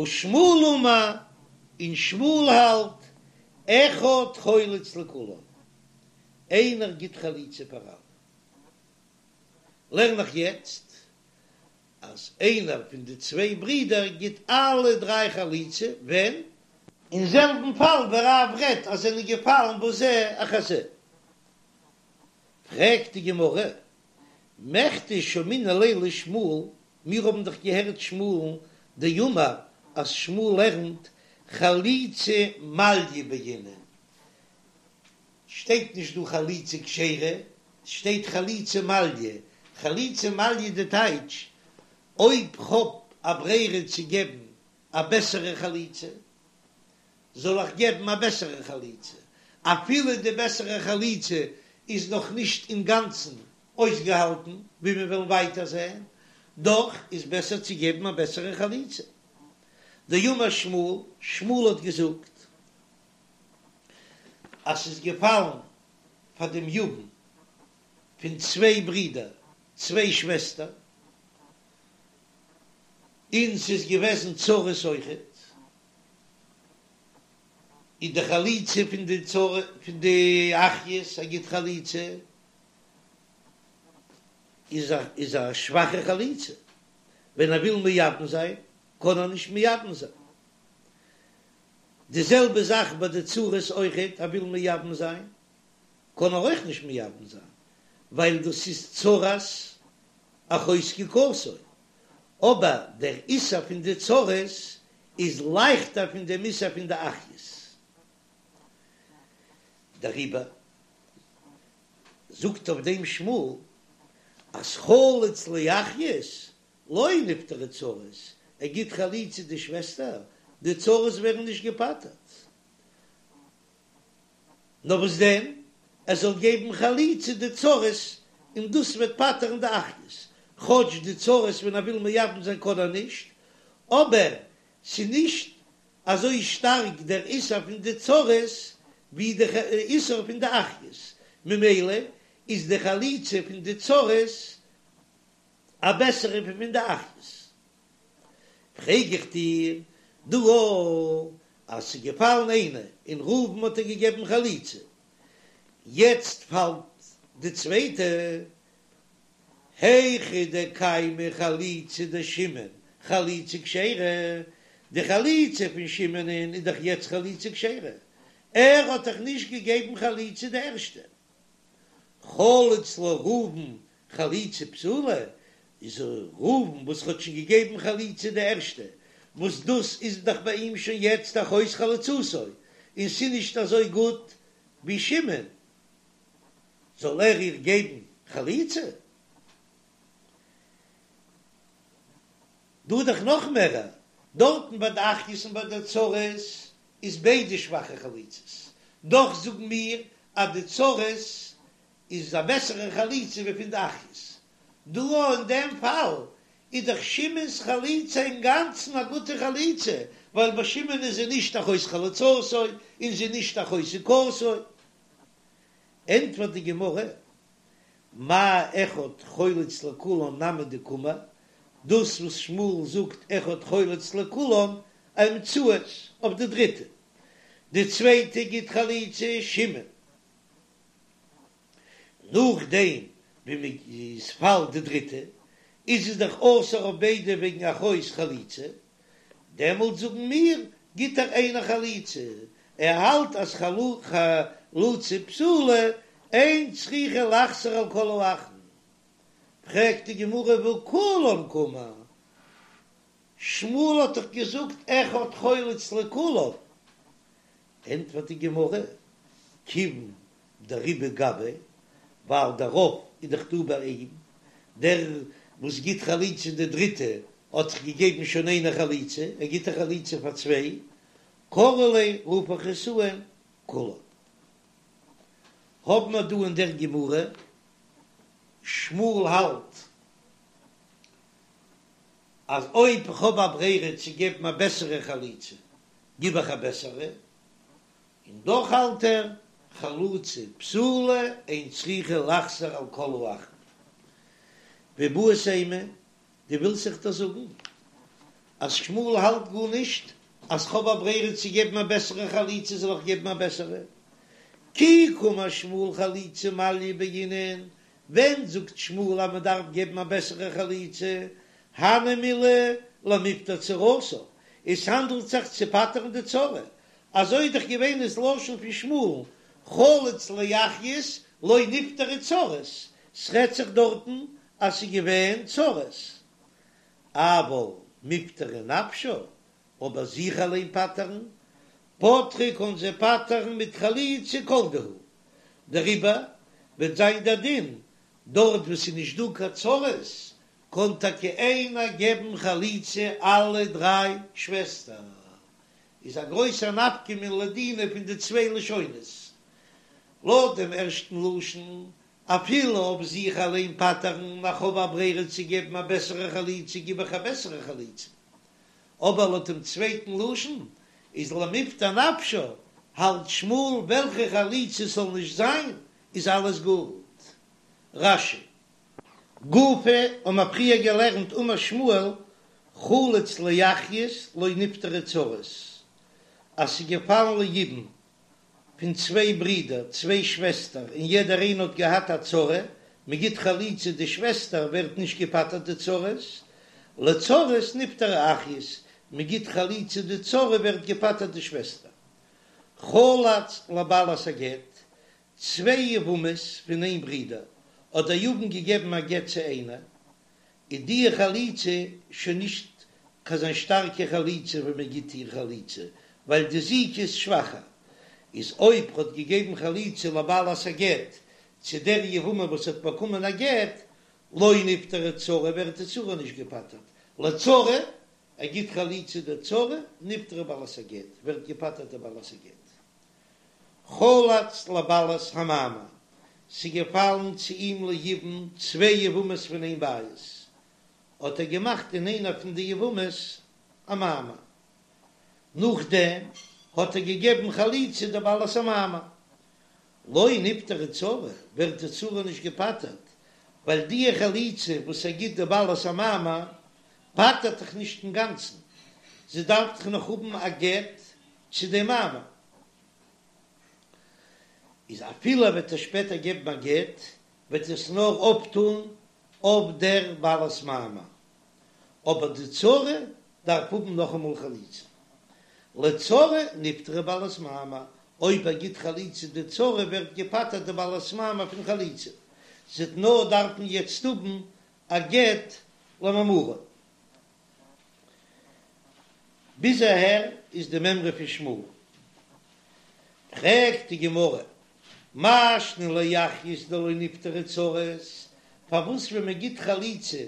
ושמואל אמר, און שמואל האלט, אחד חולץ לכולן, איינער גיט חליצה פאר אלע. לערן איך יעצט אז איינער פון די צוויי ברידער גיט אלע דריי חליצה, ווען? אין זעלבן פאל ווי רב רעדט אז זענען געפאלן בזה אחר זה. פרעגט די גמרא, מכדי שמעינן ליה לשמואל, מיר האבן דאך געהערט שמואל'ן דאמר אז שמואל לערנט חליצה מעליא בעינן, שטייט נישט דא חליצה כשרה, ס'שטייט חליצה מעליא, חליצה מעליא די טייטש אויב כ'האב א ברירה צו געבן א בעסערע חליצה, זאל איך געבן א בעסערע חליצה, אפילו די בעסערע חליצה איז נאך נישט אינגאנצן אויסגעהאלטן, ווי מיר וועלן ווייטער זען, דאך איז בעסער צו געבן א בעסערע חליצה. דאמר שמואל, שמואל האט געזאגט אז ס'איז געפאלן פאר דעם יבם פון צוויי ברידער, צוויי שוועסטער, און ס'איז געוועזן צרות אויכעט, איז די חליצה פון די צרה פון די אחיות ער גיט חליצה איז א איז א שוואכע חליצה, ווען ער וויל מייבם זיין קען ער נישט מייבם זיין, די זעלבע זאך ביי די צרות אויכעט, ער וויל מייבם זיין קען ער אויך נישט מייבם זיין ווייל דאס איז צרת אחות זקוקתו, אבער דער איסור פון די צרות איז לייכטער פון דעם איסור פון די אחיות. דעריבער זאגט אויף דעם שמואל אז חלץ לאחיות לא נפטרו צרות, ער גיט חליצה די שוועסטער, די צרות ווערן נישט געפטר'ט. נאר וואס דען, ער זאל געבן חליצה די צרות און דאס וועט פטר'ן די אחיות, כאטש די צרות ווען ער וויל מייבם זיין קען ער נישט, אבער ס'נישט אזוי שטארק דער איסור פון די צרות ווי די איסור פון די אחיות, ממילא איז די חליצה פון די צרות א בעסערע ווי פון די אחיות. פרעג איך דיר דא אז ס'איז געפאלן איינע און ראובן האט איר געגעבן חליצה, יעצט פאלט די צווייטע, היכא דקיימא חליצה דשמעון חליצה כשרה, די חליצה פון שמעונ'ען איז דאך יעצט חליצה כשרה, ער האט דאך נישט געגעבן חליצה די ערשטע, חלץ לה ראובן חליצה פסולה, איז ראובן וואס האט שוין געגעבן חליצה די ערשטע, וואס דאס איז דאך ביי אים שוין יעצט אחות חלוצתו, און ס'נישט אזוי גוט ווי שמעון, זאל ער איר געבן חליצה? דא איז דאך נאך מערער, דארטן ביי די אחיות און ביי די צרות איז ביידע שוואכע חליצות, דאך זאגן מיר אז די צרות איז א בעסערע חליצה ווי פון די אחיות. דא אין דעם פאל איז דאך שמעון'ס חליצה אינגאנצן א גוטע חליצה, ווייל ביי שמעון איז זי נישט אחות חלוצתו און זי נישט אחות זקוקתו. ענטפערט די גמרא, מאי אחד חולץ לכולן נמי דקאמר, דאס וואס שמואל זאגט אחד חולץ לכולן אאמצעית אויף די דריטע, די צווייטע גיט חליצה שמעון, נאכדעם ווי מען איז פאלט די דריטע איז עס דאך אסור אויף ביידע וועגן אחות חלוצה, דעמאלט זאגן מיר גיט ער איינער חליצה, ער האלט אז חלוצה פסולה אין צריכה לחזור על כל האחין, פרעגט די גמרא והא כולן קאמר, שמואל האט דאך געזאגט אחד חולץ לכולן, ענטפערט די גמרא, כיוון דרובא גביה, ווייל דער רוב איז דאך דא ביי אים, דער וואס גיט חליצה די דריטע האט דאך געגעבן שוין איינער חליצה, ער גיט א חליצה פאר צוויי, קרי ליה רוף איך עס אן כולן. האבן מיר דא אין דער גמרא, שמואל האלט אז אויב איך האב א ברירה צו געבן א בעסערע חליצה, גיב איך א בעסערע, און דאך האלט ער, חלוצה פסולה אין צריכה לחזור על כל האחין. ואיבעית אימא, דו ווילסט זיך דאס זאגן? אז שמואל האלט גארנישט אז כ'האב א ברירה צו געבן א בעסערע חליצה זאל איך געבן א בעסערע? כי קאמר שמואל חליצה מעליא בעינן, ווען זאגט שמואל אז מ'דארף געבן א בעסערע חליצה? הני מילי למיפטר צרתה, עס האנדלט זיך צו פטר'ן די צרה, אזוי איז דאך געווען דאס לשון פון שמואל, חלץ לאחיות לא נפטרו צרות, ס'רעדט זיך דארטן אז ס'איז געווען צרות, אבל מיפטרא נפשה, אבער זיך אליין פטר'ן, פטרה קען זי פטר'ן מיט חליצה כל דהו, דעריבער וועט זיין דער דין, דארט וואו ס'איז נישט דא קיין צרות, קען טאקע איינער געבן חליצה אלע דריי שוועסטער, איז א גרויסע נפקא מינה לדינא פון די צוויי לשונות. לויט דעם ערשטן לשון, אפילו אויף זיך אליין פטר'ן, איך האב א ברירה צו געבן א בעסערע חליצה גיב איך א בעסערע חליצה. אבער לויט דעם צווייטן לשון, איז למיפטר נפשה, האלט שמואל וועלכע חליצה ס'זאל נישט זיין, איז אלעס גוט. רש"י. גופא האבן מיר פריער געלערנט אמר שמואל חלץ לאחיות לא נפטרו צרות, אז ס'איז געפאלן ליבום פון צוויי ברידער, צוויי שוועסטער, און יעדער איינער האט געהאט א צרה, מ'גיט חליצה די שוועסטער ווערט נישט געפטר'ט די צרות, לצרות נפטרו אחיות, מ'גיט חליצה די צרה ווערט געפטר'ט די שוועסטער. חלץ לבעלת הגט, צוויי יבמות פון איין ברודער, האט דער יבם געגעבן א גט צו איינער, איז די חליצה שוין נישט קיין אזא שטארקע חליצה ווען מען גיט איר חליצה, ווייל די זיקה איז שוואכער. איז אויב ר'האט געגעבן חליצה לבעלת הגט צו דער יבמה וואס האט באקומען א גט, לא נפטרה צרה ווערט די צרה נישט געפטר'ט, לצרה, ער גיט חליצה די צרה, נפטרה בעלת הגט, ווערט געפטר'ט די בעלת הגט. חלץ לבעלת המאמר, ס'איז געפאלן צו אים ליבום צוויי יבמות פון איין בית, האט ער געמאכט אין איינער פון די יבמות א מאמר, נאכדעם האט ער געגעבן חליצה די בעלת המאמר, לא נפטרה צרה, ווערט די צרה נישט געפטר'ט, ווייל די חליצה וואס ער גיט די בעלת המאמר פטר'ט דאך נישט אינגאנצן, זי דארף דאך נאך האבן א גט צו דעם מאמר. איז אפילו ער וועט איר שפעטער געבן א גט, וועט עס נאר אפטון אויף דער בעלת מאמר, אבער די צרה דארף האבן נאכאמאל חליצה. לצרה נפטרה בעלת מאמר, אויב ער גיט חליצה די צרה ווערט געפטר'ט די בעלת מאמר פון חליצה, זי וועט נאר דארפן יעצט האבן א גט למאמרו. ביז אהער איז די מימרא פון שמואל. פרעגט די גמרא, מאי שנא לאחיות דלא נפטרו צרות, פארוואס ווען מען גיט חליצה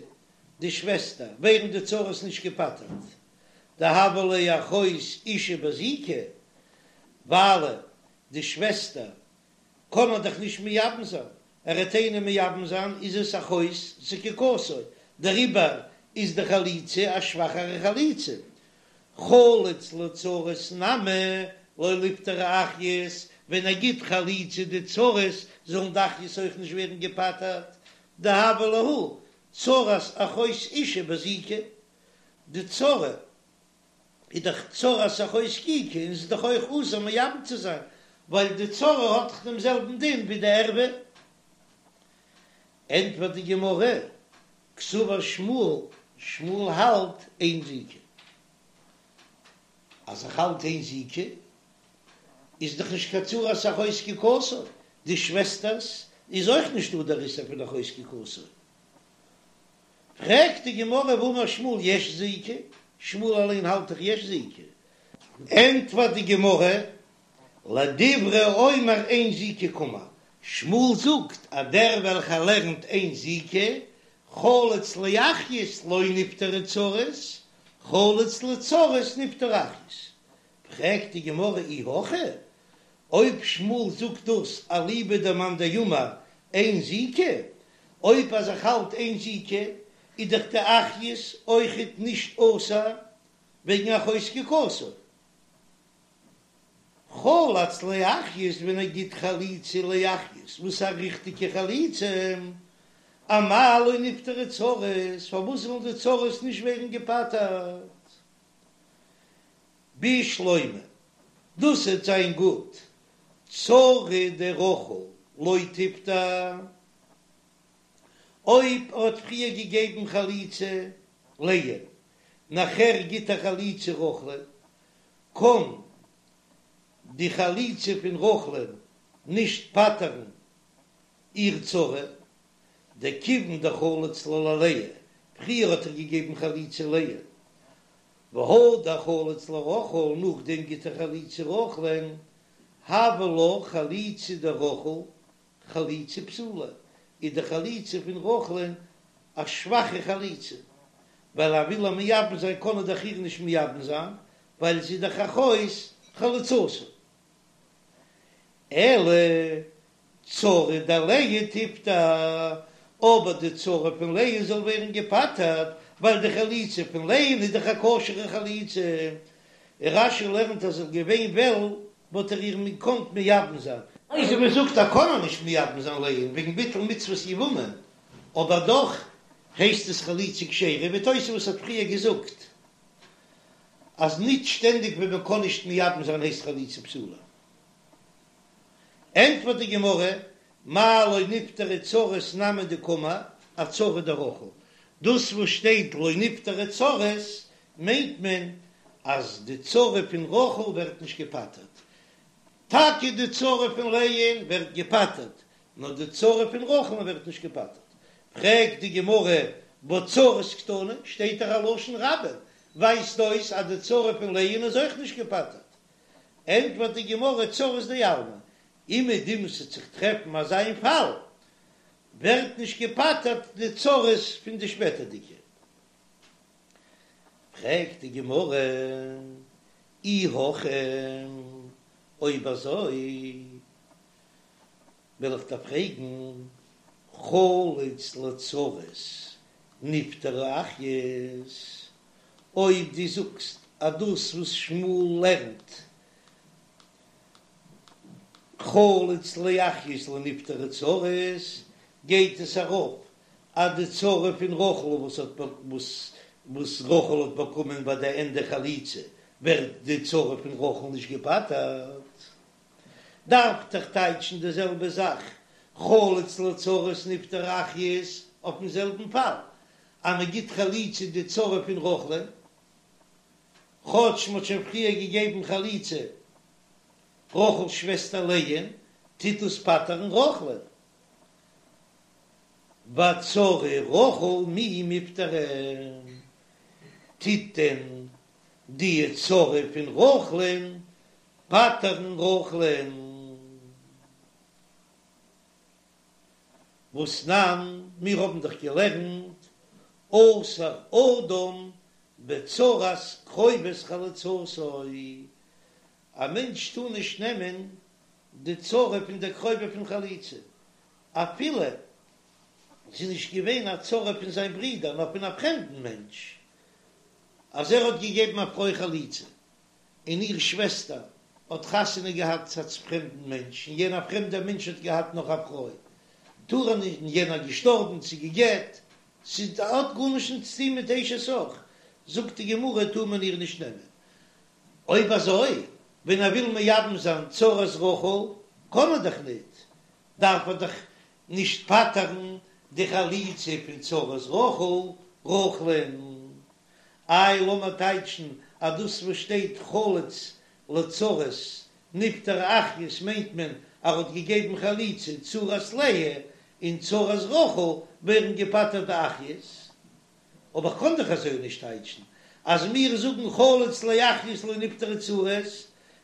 די שוועסטער ווערן די צרות נישט געפטר'ט, דהויא לה אחות אשה בזיקה, ווייל די שוועסטער קען ער דאך נישט מייבם זיין, ער וועט איינעם מייבם זיין איז עס אחות זקוקתו, דעריבער איז די חליצה א שוואכערע חליצה. חלץ לצרות נמי לא ליפטרו אחיות, ווען ער גיט חליצה די צרות זאלן די אחיות אויך נישט ווערן געפטר'ט, דהויא להו צרת אחות אשה בזיקה, די צרה איז דאך צרת אחות זקוקה און ס'איז דאך אויך אסור מייבם צו זיין, ווייל די צרה האט דאך דעם זעלבן דין ווי די ערווה. ענטפערט די גמרא, קסבר שמואל, שמואל האלט אין זיקה. אז ער האלט אין זיקה, איז דאך נישט קיין צרת אחות זקוקתו, די שוועסטערס איז אויך נישט דא דער איסור פון אחות זקוקתו. פרעגט די גמרא והאמר שמואל יש זיקה, שמואל אליין האלט דאך יש זיקה, ענטפערט די גמרא לדברי האומר אין זיקה קאמר, שמואל זאגט אז דער וועלכער לערנט אין זיקה, חלץ לאחיות לא נפטרו צרות, חלץ לצרות נפטרו אחיות, פרעגט די גמרא אי הכי, אויב שמואל זאגט דאס אליבא דמאן דאמר אין זיקה, אויב אז ער האלט אין זיקה, איז דאך די אחיות אויכעט נישט אסור וועגן אחות זקוקתו. חלץ לאחיות ווען ער גיט חליצה לאחיות וואס איז א ריכטיגע חליצה, אמאי לא נפטרו צרות, פארוואס זאלן די צרות נישט ווערן געפטר'ט? בשלמא, דאס וועט זיין גוט, צרה דרחל לא תיפטר, אויב ער האט פריער געגעבן חליצה לאה, נאכער גיט ער חליצה רחל'ן, קען די חליצה פון רחל'ן נישט פטר'ן איר צרה, דכיון דחלץ לה ללאה, פריער האט ער געגעבן חליצה לאה, והדר חלץ לרחל, נאכדעם גיט ער חליצה רחל'ן, הויא לה חליצה דרחל חליצה פסולה, איז די חליצה פון רחל'ן א שוואכע חליצה, ווייל ער וויל איר מייבם זיין קען ער דאך איר נישט מייבם זיין, ווייל זי איז דאך אחות חלוצתו. אלא צרה דלאה תיפטר, אבער די צרה פון לאה זאל ווערן געפטר'ט, ווייל די חליצה פון לאה'ן איז דאך א כשר'ע חליצה, און רש"י לערנט אז ער געווען וועל וואלט ער איר געקאנט מייבם זיין. אזוי ווי מ'זאגט אז קען ער נישט מייבם זיין לאה'ן וועגן ביטול מצוות יבמה, אבער דאך הייסט עס חליצה כשרה, ווי תוספות האט פריער געזאגט אז ניט שטענדיג ווען מען קען נישט מייבם זיין הייסט חליצה פסולה. ענטפערט די גמרא, מאי לא נפטרו צרות נמי דקאמר אצרה דרחל, דאס וואס שטייט לא נפטרו צרות מיינט מען אז די צרה פון רחל ווערט נישט געפטר'ט, טאקע די צרה פון לאה'ן ווערט געפטר'ט, נאר די צרה פון רחל'ן ווערט נישט געפטר'ט. פרעגט די גמרא, והא צרות קתני, שטייט דאך א לשון רבים, ווייזט אויס אז די צרה פון לאה'ן איז אויך נישט געפטר'ט. ענטפערט די גמרא, צרות דעלמא, אומעדום ס'וועט זיך טרעפן אזא איין פאל, ווערט נישט געפטר'ט די צרות פון די שפעטערדיגע. פרעגט די גמרא, אי הכי, אויב אזוי וועל איך דיר פרעגן, חלץ לצרות נפטרו אחיות, אויב דו זאגסט אז דאס וואס שמואל לערנט חלץ לאחיות לא נפטרו צרות, גייט עס ארויף אז די צרה פון רחל וואס האט וואס וואס רחל האט באקומען ביי די ענדע חליצה ווערט די צרה פון רחל נישט געפטר'ט, דארף דאך טייטשן די זעלבע זאך חלץ לצרות נפטרו אחיות אויפן זעלבן פאל אז מען גיט חליצה די צרה פון רחל'ן כאטש מען האט שוין פריער געגעבן חליצה רחל'ס שוועסטער לאה'ן טוט דאס פטר'ן רחל'ן. ואצרה רחל מי מיפטרא, טוט דען די צרה פון רחל'ן פטר'ן רחל'ן? והתנן, מיר האבן דאך געלערנט אסור אדם בצרת קרובת חלוצתו, א מענטש טאר נישט נעמען די צרה פון דער קרובה פון חליצה, אפילו זי איז נישט געווען א צרה פון זיין ברודער נאר פון א פרעמדן מענטש, אז ער האט געגעבן א פרוי חליצה און איר שוועסטער האט חתונה געהאט צו א פרעמדן מענטש און יענער פרעמדער מענטש האט געהאט נאך א פרוי, טאר ער נישט, און יענער געשטארבן צו גע'גט, ס'האט גארנישט נישט צו טון מיט אשת אח, זאגט די גמרא טאר מען איר נישט נעמען. אויב אזוי, ווען ער וויל מייבם זיין צרת רחל, קען ער דאך ניט, דארף ער דאך נישט פטר'ן די חליצה פון צרת רחל, רחל'ן. איי לאמיר טייטשן אז דאס וואס שטייט חלץ לצרות נפטרו אחיות מיינט מען אז ער האט געגעבן חליצה צרת לאה און צרת רחל ווערן געפטר'ט די אחיות. אבער כ'קען דאך אזוי נישט טייטשן, אז מיר זאגן חלץ לאחיות לא נפטרו צרות,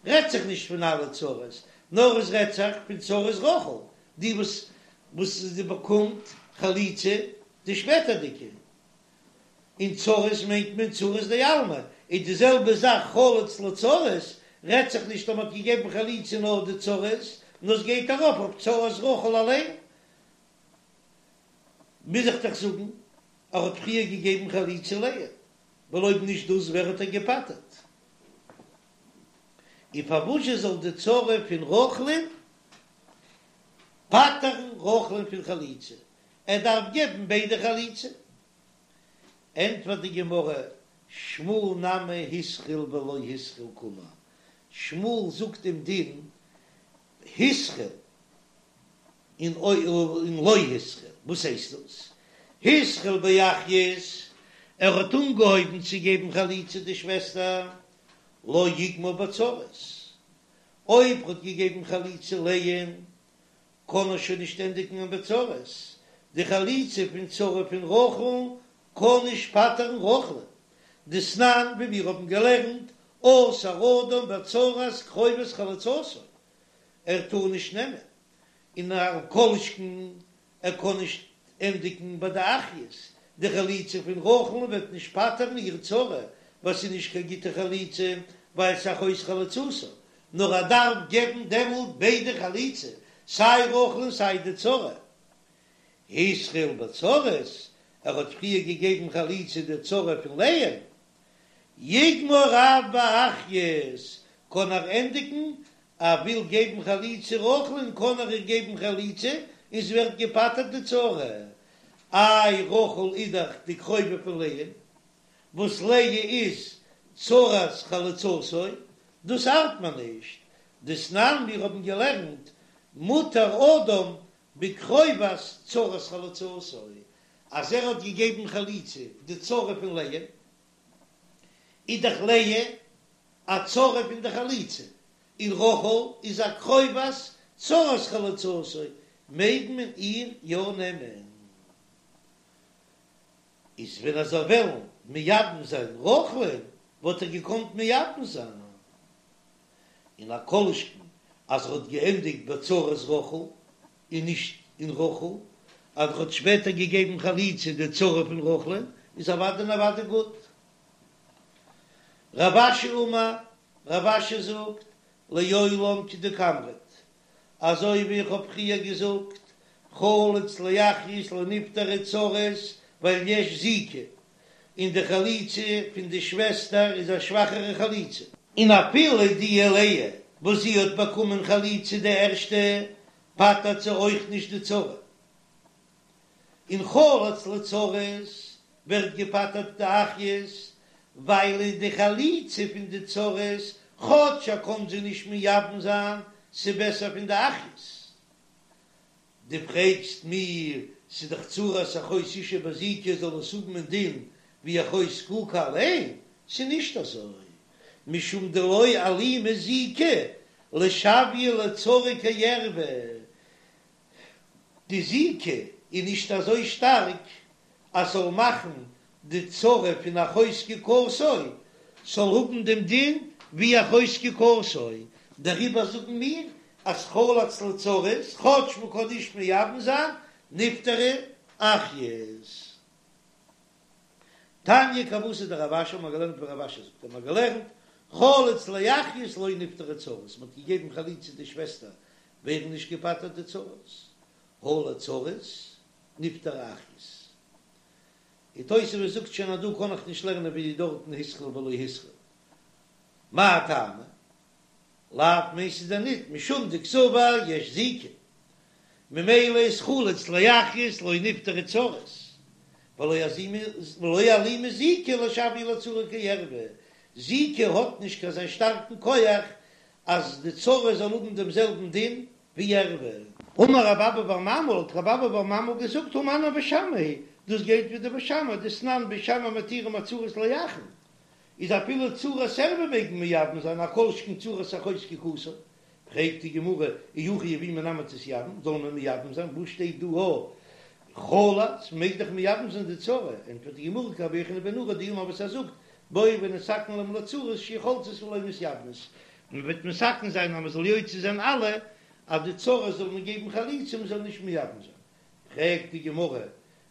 רעדט זיך נישט פון אלע צרות, נאר עס רעדט זיך פון צרת רחל, די וואס וואס זי באקומט חליצה די שפעטערדיגע, און צרות מיינט מען צרות דעלמא, איז די זעלבע זאך חלץ לצרות, רעדט זיך נישט אז מ'האט געגעבן חליצה נאר די צרות, נאר עס גייט ארויף אויף צרת רחל אליין. מוז איך דאך זאגן ער האט פריער געגעבן חליצה לאה, ווייל אויב נישט דאס ווער האט ער געפטר'ט? און פארוואזשע זאל די צרה פון רחל'ן פטר'ן רחל'ן פון חליצה? ער דארף געבן ביידע חליצה. ענטפערט די גמרא, שמואל נמי התחיל ולא התחיל קאמר, שמואל זאגט דעם דין התחיל און לא התחיל, וואס הייסט דאס? התחיל באחיות, ער האט אנגעהויבן צו געבן חליצה די שוועסטער, לא יגמור בצרות, אויב ער האט געגעבן חליצה לאה'ן, קען ער שוין נישט ענדיגן בצרות, די חליצה פון צרה פון רחל קען נישט פטר'ן רחל'ן, דתנן ווי מיר האבן געלערנט, אסור אדם בצרת קרובת חלוצתו, ער טאר נישט נעמען, און א כל שכן ער קען נישט ענדיגן ביי די אחיות, די חליצה פון רחל'ן וועט נישט פטר'ן איר צרה, ווייל ס'איז נישט קיין גוטע חליצה, ווייל ס'איז אחות חלוצתה, נאר ער דארף געבן דעמאלט ביידע חליצה, סיי רחל און סיי די צרה. התחיל בצרות, ער האט פריער געגעבן חליצה די צרה פון לאה'ן, יגמור אף באחיות, קען ער ענדיגן, ער וויל געבן חליצה רחל'ן קען ער איר געבן חליצה און ס'ווערט געפטר'ט די צרה, איי רחל איז דאך די קרובה פון לאה'ן, וואס לאה איז צרת חלוצתו, דאס ארט מיר נישט, דתנן מיר האבן געלערנט מותר אדם בקרובת צרת חלוצתו, אז ער האט געגעבן חליצה די צרה פון לאה, איז דאך לאה א צרה פון די חלוצה, און רחל איז א קרובת צרת חלוצתו, מעג מען איר יא נעמען. איז ווען ער זאל וועלן מייבם זיין רחל'ן וואלט ער געקאנט מייבם זיין, און א כל שכן אז ער האט געענדיגט בצרת רחל און נישט אין רחל, אז ער האט שפעטער געגעבן חליצה די צרה פון רחל'ן איז אוודאי און אוודאי גוט. רב אשי אמר, רב אשי זאגט, לעולם כדקאמרת, אזוי ווי איך האב פריער געזאגט, חלץ לאחיות לא נפטרו צרות ווייל יש זיקה, און די חליצה פון די שוועסטער איז א שוואכערע חליצה. און אפילו די לאה וואס זי האט באקומען חליצה די ערשטע, פטר'ט זי אויך נישט די צרה. און חלץ לצרות ווערט געפטר'ט די אחיות, ווייל די חליצה פון די צרות, כאטש ער קען זיי נישט מייבם זיין, ס'בעסער פון די אחיות. דו פרעגסט מיר, ס'איז דאך צרת אחות אשה בזיקה זאל עס האבן א דין ווי אחות זקוקה אליין? ס'איז נישט אזוי, משום דלא אלימא זיקה לשוייה לצרה כערוה, די זיקה איז נישט אזוי שטארק אז ס'זאל מאכן די צרה פון אחות זקוקתו זאל האבן דעם דין ווי אחות זקוקתו, דעריבער זאגן מיר אז חלץ לצרות, כאטש מ'קען נישט מייבם זיין, נפטרו אחיות. תניא כוותיה דרב אשי האט מען געלערנט ווי רב אשי זאגט האט מען געלערנט חלץ לאחיות לא נפטרו צרות, מ'האט געגעבן חליצה די שוועסטער ווערן נישט געפטר'ט די צרות, הא לצרות נפטרו אחיות. און תוספות זאגט שוין אז דא קען איך נישט לערנען ווי דארטן התחיל ולא התחיל. מאי טעמא? לאו מיינט ס'איז דען ניט משום דקסבר יש זיקה, ממילא איז חלץ לאחיות לא נפטרו צרות, ולא אלימא זיקה לשוייה לצרה כערוה, זיקה האט נישט קיין אזא שטארקן כח אז די צרה זאל האבן דעם זעלבן דין ווי ערוה. אמר רב אבא בר ממל, האט רב אבא בר ממל געזאגט, הא מני בית שמאי היא, דאס גייט ווי די בית שמאי, דתנן בית שמאי מתירים הצרות לאחין, איז אפילו צרת ערוה מעג מען מייבם זיין, א כל שכן צרת אחות זקוקתו. פרעגט די גמרא, אי הכי יבומי נמי תתייבם, זאל מען מייבם זיין, וואס שטייט דא הא חלץ, מ'מעג דאך מייבם זיין די צרה, ענטפערט די גמרא כרבי יוחנן בן נורי דאמר וואס ער זאגט, בואו ונתקן להם לצרות שיהו חולצות ולא מתייבמות, מען וועט מתקן זיין אז מען זאל יוצא זיין אלע אז די צרות זאל מען געבן חליצה מען זאל נישט מייבם זיין, פרעגט די גמרא,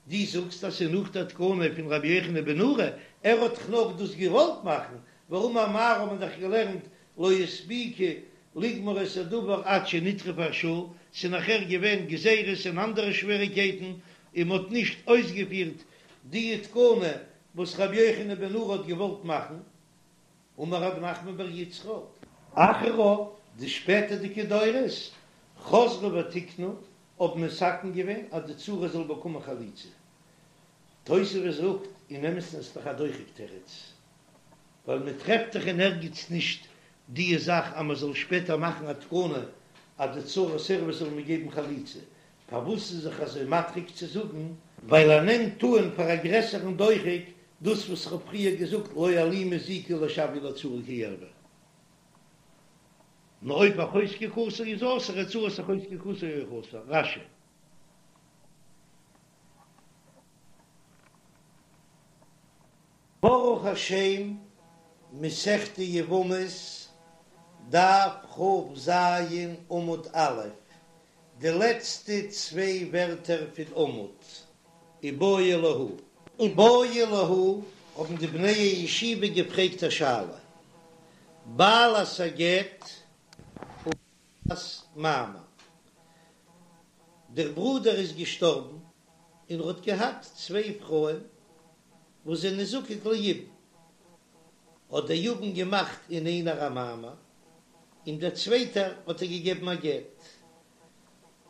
דו זאגסט אז ס'איז נאך דער תקנה פון רבי יוחנן בן נורי, ער האט דאך נאך דאס געוואלט מאכן, והאמר מר האט מען דאך געלערנט לא הספיקו לגמור את הדבר עד שנטרפה השעה, ס'איז נאכער געווען גזירות און אנדערע שוועריקייטן און מ'האט נישט אויסגעפירט די תקנה וואס רבי יוחנן בן נורי האט געוואלט מאכן. אמר רב נחמן בר יצחק. אחריו, די שפעטערדיגע דורות, חזרו ותיקנו, האבן מתקן געווען אז די צרה זאל באקומען חליצה. תוספות זאגט, אין אמת'ן איז דאך א דוחק תירוץ. ווייל מען טרעפט דאך אין ערגעץ נישט די זאך אז מען זאל שפעטער מאכן א תקנה אז די צרת ערוה זאל מען געבן חליצה, פארוואס איז זיך אזוי מדחיק צו זאגן? ווייל ער נעמט אן פאר א גרעסערן דוחק דאס וואס איך האב פריער געזאגט לא אלימא זיקה לא שוויא לצרה כערוה. נאר אויב אחות זקוקתו איז אסור איז צרת אחות זקוקתו אויך אסור. רש"י. ברוך השם, מסכת יבמות, דף כ"ז עמוד א', די לעצטע צוויי ווערטער פון עמוד, איבעיא להו. איבעיא להו, האבן די בני הישיבה געפרעגט א שאלה, בעלת הגט ובעלת מאמר, דער ברודער איז געשטארבן און ער האט געהאט צוויי פרויען וואס זענען זקוק ליבום, האט דער יבם געמאכט אין איינער א מאמר, און דער צווייטער האט ער געגעבן א גט.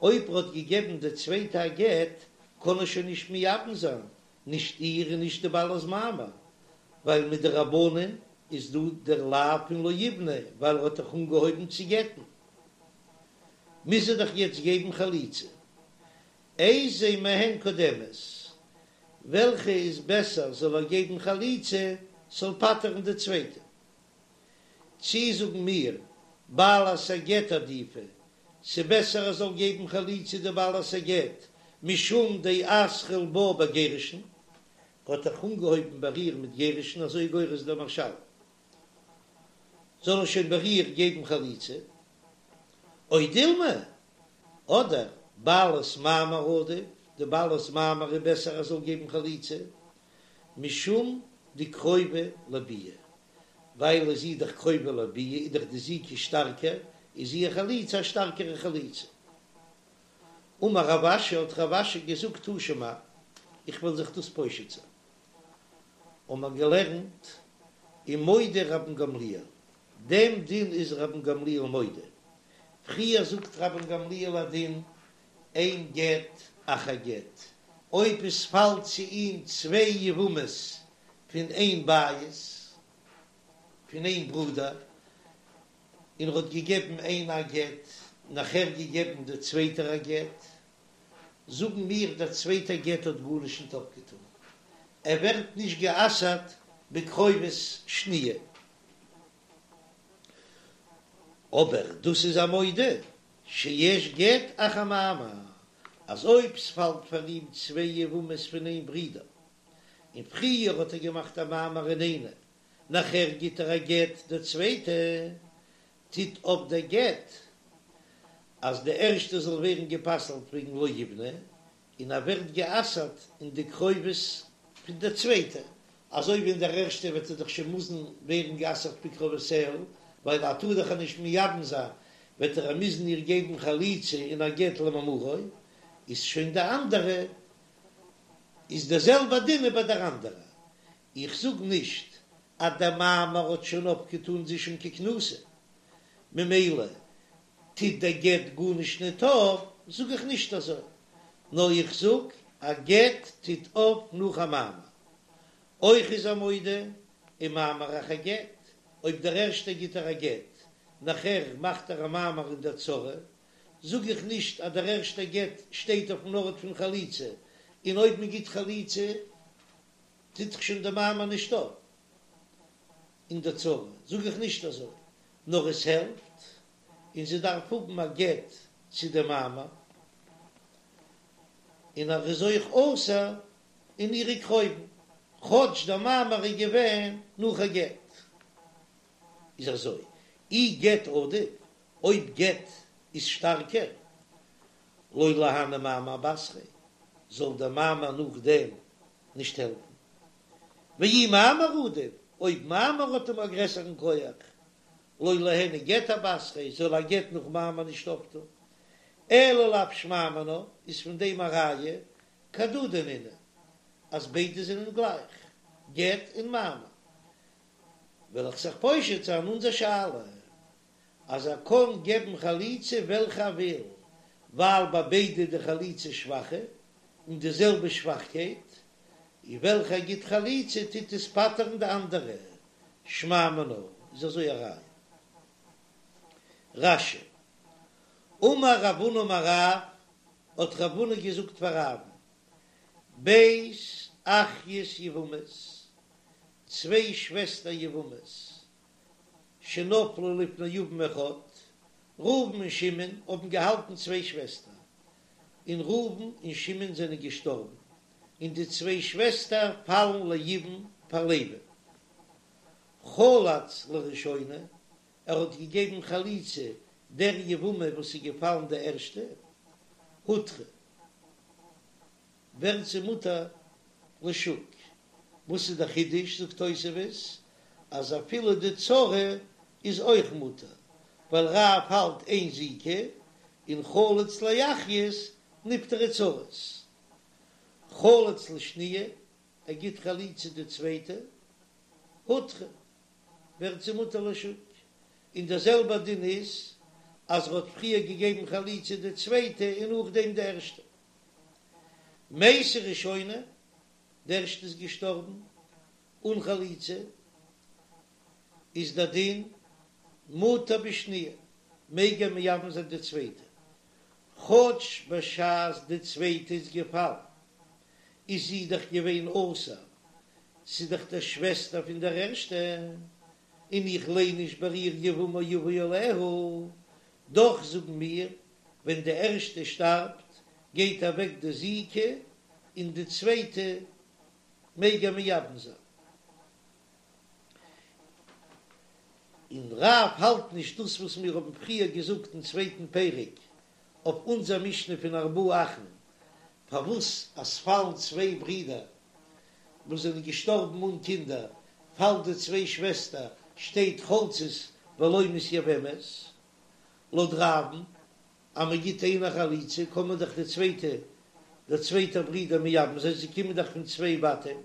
אויב ער האט געגעבן דער צווייטע א גט, קען ער שוין נישט מייבם זיין, נישט איר און נישט די בעלת מאמר, ווייל מדרבנן איז דא דער לאו פון לא יבנה, ווייל ער האט דאך אנגעהויבן צו גט'ן, מוז ער דאך יעצט געבן חליצה. איזו מהן קודמת, וועלכע איז בעסער זאל ער געבן חליצה ס'זאל פטר'ן די צווייטע? צי זאגן מיר בעלת הגט עדיפא, ס'בעסער ער זאל געבן חליצה די בעלת הגט משום דאתחיל בה בגירושין, ער האט דאך אנגעהויבן ביי איר מיט גירושין אזוי גורס דער מהרש"ל, זאל ער שוין ביי איר געבן חליצה, או דילמא, אדער בעלת מאמר עדיף, די בעלת מאמר איז בעסער ער זאל געבן חליצה, משום דקרובה לביאה, ווייל איז זי דאך קרובה לביאה איז דאך די זיקה שטארקער, איז איר חליצה א שטארקערע חליצה. אמר רב אשי האט רב אשי געזאגט תא שמע, איך וועל זיך דאס פושט זיין. האבן מיר געלערנט ומודה רבן גמליאל, דעם דין איז רבן גמליאל מודה, פריער זאגט רבן גמליאל א דין אין גט אחר גט, אויב עס פאלט צו אים צוויי יבמות פון איין בית, פון איין ברודער, און ער האט געגעבן איינע א גט, נאכער געגעבן די צווייטער א גט, זאגן מיר דער צווייטער גט האט גארנישט ניט אפגעטאן, ער ווערט נישט גע'אסר'ט בקרובות שניה. אבער דאס איז ער מודה שיש גט אחר מאמר, אז אויב ס'פאלט פאר אים צוויי יבמות פון איין ברודער, און פריער האט ער געמאכט א מאמר אין איינע, נאכער גיט ער א גט די צווייטע, טוט אויף דער גט אז די ערשטע זאל ווערן גע'פסל'ט וועגן לא יבנה, און ער ווערט גע'אסר'ט אין די קרובות פון דער צווייטע, אזוי ווי אין דער ערשטע וועט ער דאך שוין מוזן ווערן גע'אסר'ט בקרובותיה, ווייל ער טאר דאך איר נישט מייבם זיין, וועט ער מוזן איר געבן חליצה און א גט למאמרו, איז שוין די אנדערע, איז דער זעלבע דין איז ביי דער אנדערע. איך זאג נישט אז דער מאמר האט שוין אפגעטאן זי שוין ככנוסה, ממילא טוט דער גט גארנישט ניט אויף, זאג איך נישט אזוי, נאר איך זאג א גט טוט אויף נאך א מאמר. אויך איז ער מודה ומאמר אחר גט, אויב דער ערשטער גיט ער א גט, נאכער מאכט ער א מאמר אין דער צרה, זאג איך נישט אז דער ערשטער גט שטייט אויפן ארט פון חליצה, און אויב מען גיט חליצה טוט זיך שוין דער מאמר נישט אויף אין דער צרה, זאג איך נישט אזוי, נאר עס העלפט, און זי דארף האבן א גט צו דעם מאמר, און ער איז אויך אסור אין אירע קרובים, כאטש דער מאמר איז געווען נאך א גט. איז אזוי, אי גט עדיף, אויב גט איז שטארקער, לא ליהני מאמר אבתריה, זאל דער מאמר נאכדעם נישט העלפן. ואי מאמר עדיף, אויב מאמר האט אים א גרעסערן כח, לא ליהני גט אבתריה, זאל א גט נאך מאמר נישט אויפטון. אלא לאו שמע מינה, איז פון דעם א ראיה, כהדדי נינהו, אז ביידע זענען גלייך, גט און מאמר. וועל איך זיך פושט זיין אונזער שאלה, אז ער קען געבן חליצה וועלכע ער וויל, ווייל ביי ביידע די חליצה שוואכע, און די זעלבע שוואכקייט, און וועלכע ער גיט חליצה טוט עס פטר'ן די אנדערע. שמע מינה, איז אזוי א ראיה. רש"י, אמר רב הונא אמר רב, האט רב הונא געזאגט פאר רב'ן, ב' אחיות יבמות, צוויי שוועסטער יבמות, שנפלו לפני יבם אחד, ראובן און שמעון האבן געהאלטן צוויי שוועסטער, און ראובן און שמעון זענען געשטארבן, און די צוויי שוועסטער פאלן ליבום פאר לוי'ן. חלץ לראשונה, ער האט געגעבן חליצה דער יבמה וואס איז געפאלן די ערשטע, הותרה, ווערט זי מותר לשוק. וואס איז דער חידוש, זאגט תוספות, אז אפילו די צרה איז אויך מותר, ווייל רב האלט אין זיקה, און חלץ לאחיות נפטרו צרות. חלץ לשניה, ער גיט חליצה די צווייטע, הותרה, ווערט זי מותר לשוק. און דער זעלבער דין איז אז ער האט פריער געגעבן חליצה די צווייטע און נאכדעם די ערשטע. מתה ראשונה, די ערשטע איז געשטארבן אן חליצה, איז דער דין מותר בשניה, מעג ער מייבם זיין די צווייטע, כאטש בשעת די צווייטע איז געפאלן איז זי דאך געווען אסור, ס'איז דאך די שוועסטער פון דער ערשטע, און איך ליין נישט ביי איר יבמה יבא עליה, דאך זאגן מיר, ווען די ערשטע שטארבט גייט אוועק די זיקה און די צווייטע מעג ער מייבם זיין. און רב האלט נישט דאס וואס מיר האבן פריער געזאגט אין צווייטן פרק אויף אונזער משנה פון ארבעה אחין, פארוואס אז פאלן צוויי ברידער וואס זענען געשטארבן אן קינדער, פאלט די צוויי שוועסטער, שטייט חולצות ולא מתייבמות, לויט רב'ן אז מען גיט איינער חליצה קען מען דאך די צווייטע דער צווייטער ברודער מייבם זיין, זיי קומען דאך פון צוויי בתים.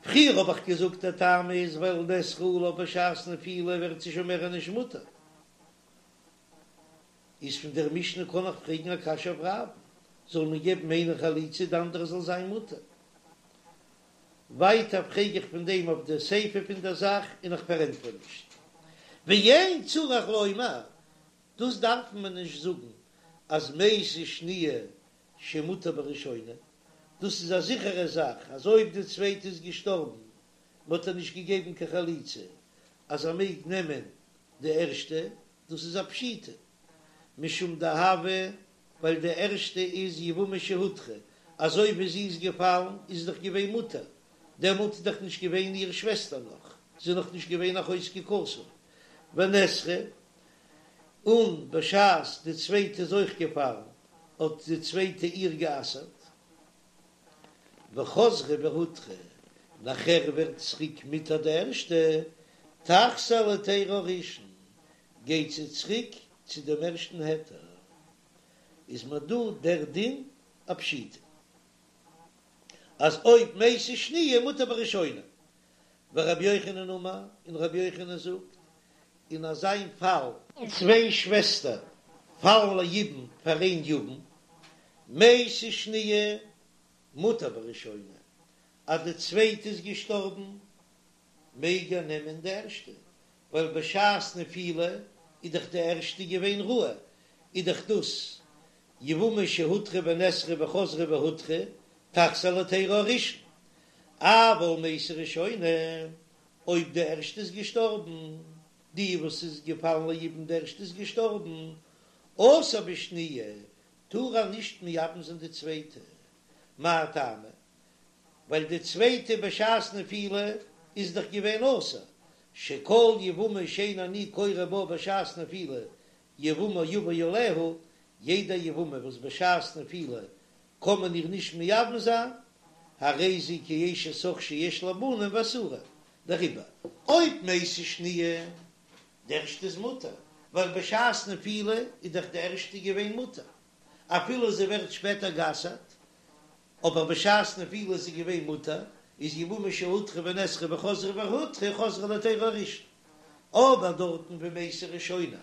פריער האב איך געזאגט דער טעם איז ווייל נאסרה עליו בשעת נפילה ווערט זי שוין מער נישט מותר. איז פון דער משנה קען איך פרעגן א קשיא אויף רב, זאל מען געבן איינער חליצה די אנדערע זאל זיין מותר? ווייטער פרעג איך פון דעם אויף די סיפא פון דער זאך און איך פארענטפער נישט. ואין צריך לומר, דאס דארף מען נישט זאגן אז מתה שניה שמותר בראשונה, דאס איז א זיכערע זאך אז אויב די צווייטע איז געשטארבן מען האט איר נישט געגעבן קיין חליצה אז ער מעג נעמען די ערשטע, דאס איז א פשיטא משום דהוה ווייל די ערשטע איז יבמה שהותרה, אזוי ווי זי איז געפאלן איז זי דאך געווען מותר, דעמאלט איז דאך נישט געווען איר שוועסטער נאך, זי איז נאך נישט געווען אחות זקוקתו, ונאסרה, און בשעת די צווייטע איז אויך געפאלן האט די צווייטע איר גע'אסר'ט, וחזרה והותרה, נאכער ווערט צוריק מותר די ערשטע, תחזור להיתרה הראשון, גייט זי צוריק צו דעם ערשטן היתר, איז מיר דא דער דין א פשיטא אז אויב מתה שניה מותר בראשונה, ורבי יוחנן אמר, און רבי יוחנן זאגט, אין אזיין פאל, צוויי שוועסטער פאלן ליבום פאר איין יבם, מתה שניה מותר בראשונה, אז די צווייטע איז געשטארבן מעג ער נעמען די ערשטע, ווייל בשעת נפילה איז דאך די ערשטע געווען ראוי, איז דאך דאס יבמה שהותרה ונאסרה וחזרה והותרה תחזור להיתרה הראשון, אבל מתה ראשונה, אויב די ערשטע איז געשטארבן, די וואס איז געפאלן ליבום די ערשטע איז געשטארבן, אסור בשניה, טאר ער נישט מייבם זיין די צווייטע, מאי טעמא? ווייל די צווייטע בשעת נפילה איז דאך געווען אסור, שכל יבמה שאין אני קורא בה בשעת נפילה יבמה יבא עליה, יעדע יבמה וואס בשעת נפילה קען מען איר נישט מייבם זיין, הרי זו כאשת אח שיש לה בנים ואסורה, דעריבער אויב מתה שניה, די ערשטע איז מותר, ווייל בשעת נפילה איז דאך די ערשטע געווען מותר, אפילו זי ווערט שפעטער גע'אסר'ט, אבער בשעת נפילה איז זי געווען מותר, איז יבמה שהותרה ונאסרה וחזרה והותרה חוזרה להיתרה הראשון, אבער דארטן ווי מתה ראשונה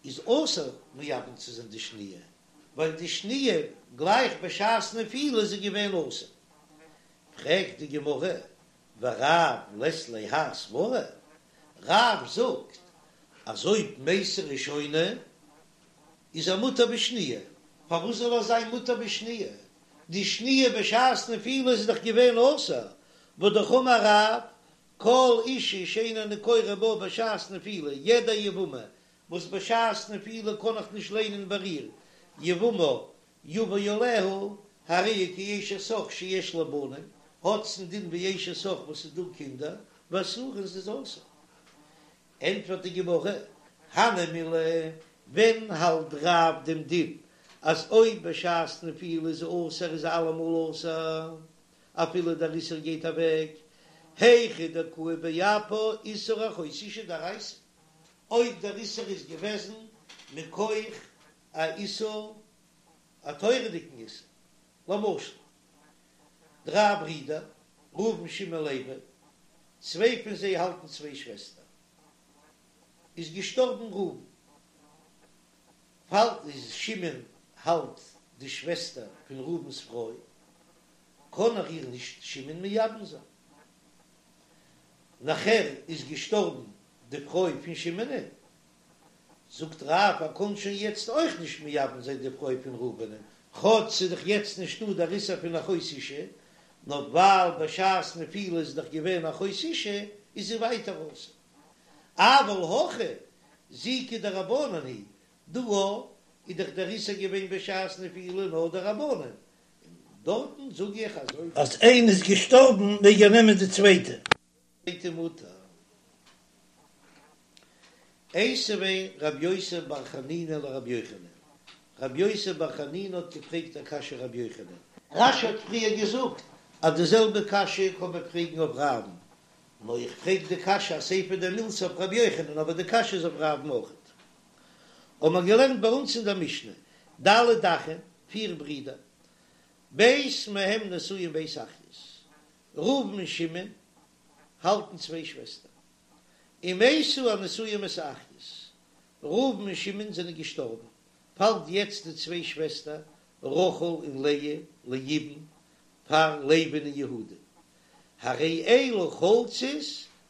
איז אסור מייבם צו זיין די שניה, ווייל די שניה גלייך בשעת נפילה איז זי געווען אסור. פרעגט די גמרא, ורב לית ליה האי סברא, רב זאגט אז אויב מתה ראשונה איז ער מותר בשניה, פארוואס זאל ער זיין מותר בשניה? די שניה בשעת נפילה איז דאך געווען אסור, והא דאמר רב, כל אישה שאין אני קורא בה בשעת נפילה, יעדע יבמה וואס בשעת נפילה קען איך נישט ליינען ביי איר יבמה יבא עליה, הרי היא כאשת אח שיש לה בנים, האט זי א דין ווי אשת אח וואס איז דא קינדער, ואסורה און ס'איז אסור. ענטפערט די גמרא, הני מילי, ווען האלט רב דעם דין אז אויב בשעת נפילה איז אסור איז אלעמאל אסור אפילו דער איסור גייט אוועק, היכא דקאי באפה איסור אחות אשה דאורייתא, אויב דער איסור איז געוועזן מכח א איסור א תורה'דיגן איסור, למשל דריי ברידער ראובן שמעון לוי, צוויי פון זיי האלטן צוויי שוועסטער, איז געשטארבן ראובן, פאלט איז שמעון האלט די שוועסטער פון ראובן'ס פרוי, קען ער איר נישט שמעון מייבם זיין. נאכער איז געשטארבן די פרוי פון שמעונ'ען, זאגט רב ער קען שוין יעצט אויך נישט מייבם זיין די פרוי פון ראובנ'ען, כאטש ס'איז דאך יעצט נישטא דער איסור פון אחות אשה, נאר ווייל בשעת נפילה איז דאך געווען אחות אשה, איז זי ווייטער אסור. אבל הכא זיקה דרבנן היא, דא איז דאך דער איסור געווען בשעת נפילה נאר דרבנן, און דארטן זאג איך אז אויב. אז איינע איז געשטארבן מעג ער נעמען די צווייטע. צווייטע מותר. איתיביה רב יוסף בר חנינא לרבי יוחנן, רב יוסף בר חנינא האט געפרעגט א קשיא רבי יוחנן. רש"י האט פריער געזאגט אז די זעלבע קשיא קען מען פרעגן אויף רב'ן, נאר איך פרעג די קשיא אסיפא דמילתא אויף רבי יוחנן אבער די קשיא איז אויף רב'ן אויכעט. האבן מיר געלערנט ביי אונז אין דער משנה, ד' אחים, פיר ברידער, ב' מהם נשואים ב' אחיות, ראובן און שמעון האלטן צוויי שוועסטער, ומתו הנשואים את האחיות, ראובן און שמעון זענען געשטארבן, פאלט יעצט די צוויי שוועסטער רחל און לאה ליבום פאר לוי'ן און יהודה, הרי אלו חולצות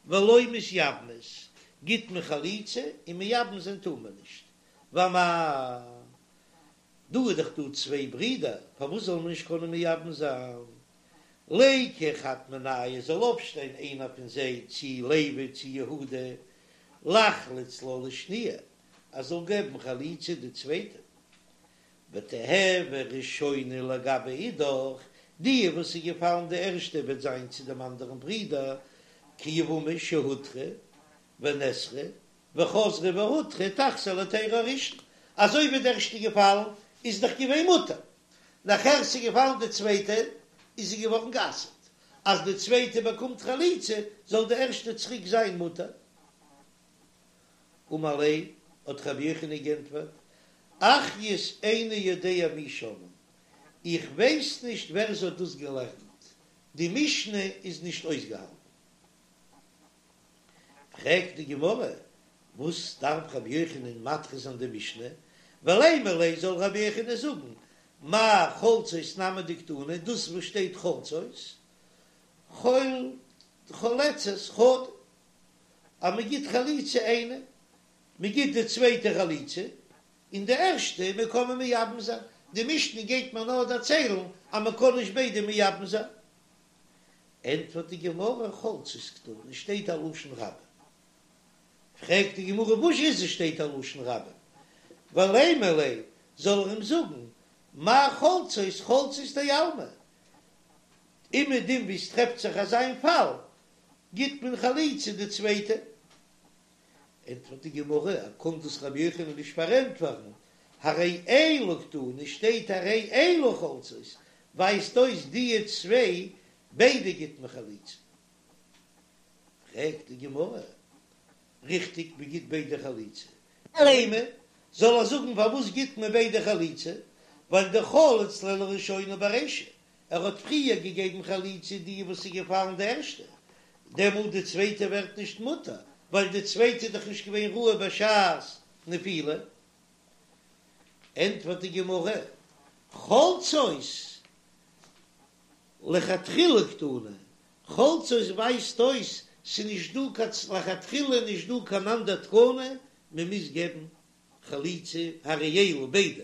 ולא מתייבמות, גיט מען חליצה און מייבם זיין טאר מען נישט, ואמאי, דא איז דאך דא צוויי ברידער, פארוואס זאל מען נישט קענען מייבם זיין? ליקו חד מינייהו זאל אויפשטיין איינער פון זיי צי לוי צי יהודה, לחלוץ לה לשניה, ער זאל געבן חליצה די צווייטע, ותיהוי ראשונה לגבי אידך, די וואס איז געפאלן די ערשטע וועט זיין צו דעם אנדערן ברודער, כיבמה שהותרה ונאסרה וחזרה והותרה תחזור להיתירה הראשון, אזוי ווי די ערשטע געפאלן איז דאך געווען מותר, נאכער ס'איז געפאלן די צווייטע איז זי געווארן גע'אסר'ט, אז די צווייטע באקומט חליצה זאל די ערשטע צוריק זיין מותר. אמר ליה, האט רבי יוחנן גענטפערט, אחיות איני יודע מי שנאן, איך ווייס נישט ווער ס'האט דאס געלערנט, די משנה איז נישט אויסגעהאלטן. פרעגט די גמרא, וואס דארף רבי יוחנן מדחה זיין די משנה, ולימא ליה זאל רבי יוחנן זאגן, מאי חולצות נמי דקתני, דאס וואס שטייט חולצות, חולצות חדא, אז מען גיט חליצה איינע, מען גיט די צווייטע חליצה, און די ערשטע מען קען מען מייבם זיין, די משנה גייט מיר נאר דערציילן אז מען קען נישט ביידע מייבם זיין. ענטפערט די גמרא חולצות קתני שטייט א לשון רבים. פרעגט די גמרא וואס איז עס שטייט א לשון רבים? ולימא ליה זאל ער אים זאגן מאי חולצות חולצות דעלמא, אומעדום ווי עס טרעפט זיך אזא איין פאל גיט מען חליצה די צווייטע. ענטפערט די גמרא, ער קען דאס רבי יוחנן נישט פארענטפערן, הרי אלו קתני שטייט הרי אלו חולצות, ווייזט אויס דיע צוויי ביידע גיט מען חליצה. פרעגט די גמרא, ריכטיג מען גיט ביידע חליצה, לימא, זאל ער זאגן פארוואס גיט מען ביידע חליצה, ווייל דחלץ לה לראשונה ברישא, ער האט פריער געגעבן חליצה די וואס איז געפאלן די ערשטע, דעמאלט די צווייטע ווערט נישט מותר, ווייל די צווייטע איז דאך נישט געווען ראוי בשעת נפילה. ענטפערט די גמרא, חולצות. לכתחילה קתני, חולצות ווייזט אויס ס'נישט דא קיין לכתחילה נישט דא קיין אנדער תקנה, מ'מוז געבן חליצה הרי אלו ביידע.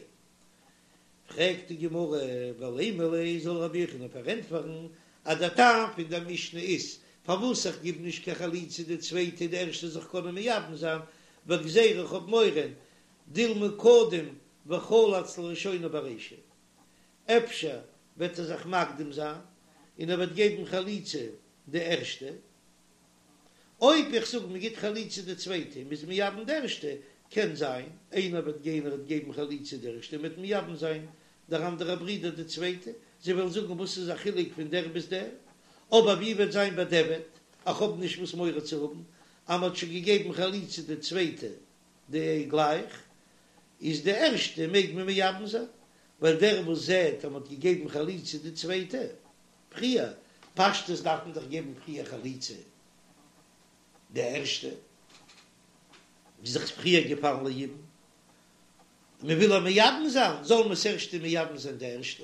פרעגט די גמרא, ולימא ליה זאל רבי יוחנן פארענטפערן אז דער טעם פון דער משנה איז פארוואס איך גיב נישט קיין חליצה די צווייטע די ערשטע זיך קענען מייבם זיין, ווייל גזירה איך האב מורא דילמא קדים וחלץ לראשונה ברישא, אפשר וועט ער זיך מקדים זיין און ער וועט געבן חליצה די ערשטע, אויב איך זאג מען גיט חליצה די צווייטע און מ'איז מייבם די ערשטע, קען זיין איינער וועט גיין ער וועט געבן חליצה די ערשטע און מ'וועט מייבם זיין דער אנדערע ברודער די צווייטע, זיי וועלן זאגן וואס איז א חילוק פון דער ביז דער, אבער ווי וועט זיין בדיעבד, איך האב נישט וואס מורא צו האבן אז מ'האט שוין געגעבן חליצה די צווייטע די גלייך איז די ערשטע מעג מען מייבם זיין, ווייל דער וואס זעט אז מ'האט געגעבן חליצה די צווייטע פריער, פשטות דארף מען דאך געבן פריער חליצה די ערשטע, איז דאך פריער געפאלן ליבום, מען וויל איר מייבם זיין, זאל מען ס'ערשטע מייבם זיין די ערשטע,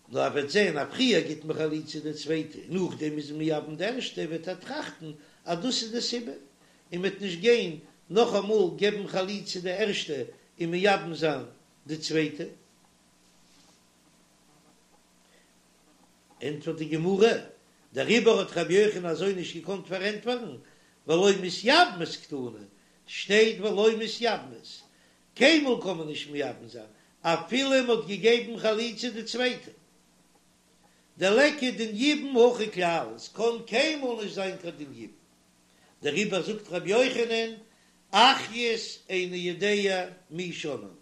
נאר ער וועט זען אז פריער גיט מען חליצה די צווייטע און נאכדעם איז מען מייבם די ערשטע, וועט ער טראכטן אז דאס איז די סיבה, און מ'וועט נישט גיין נאכאמאל געבן חליצה די ערשטע און מייבם זיין די צווייטע. ענטפערט די גמרא, דעריבער האט רבי יוחנן אזוי נישט געקאנט פארענטפערן, ולא מתייבמות קתני, שטייט ולא מתייבמות, קיינמאל קען מען נישט מייבם זיין אפילו מען האט געגעבן חליצה די צווייטע, דליכא דין יבום הכא כלל, עס קען קיינמאל נישט זיין קיין דין יבום, דעריבער זאגט רבי יוחנן, אחיות איני יודע מי שנאן.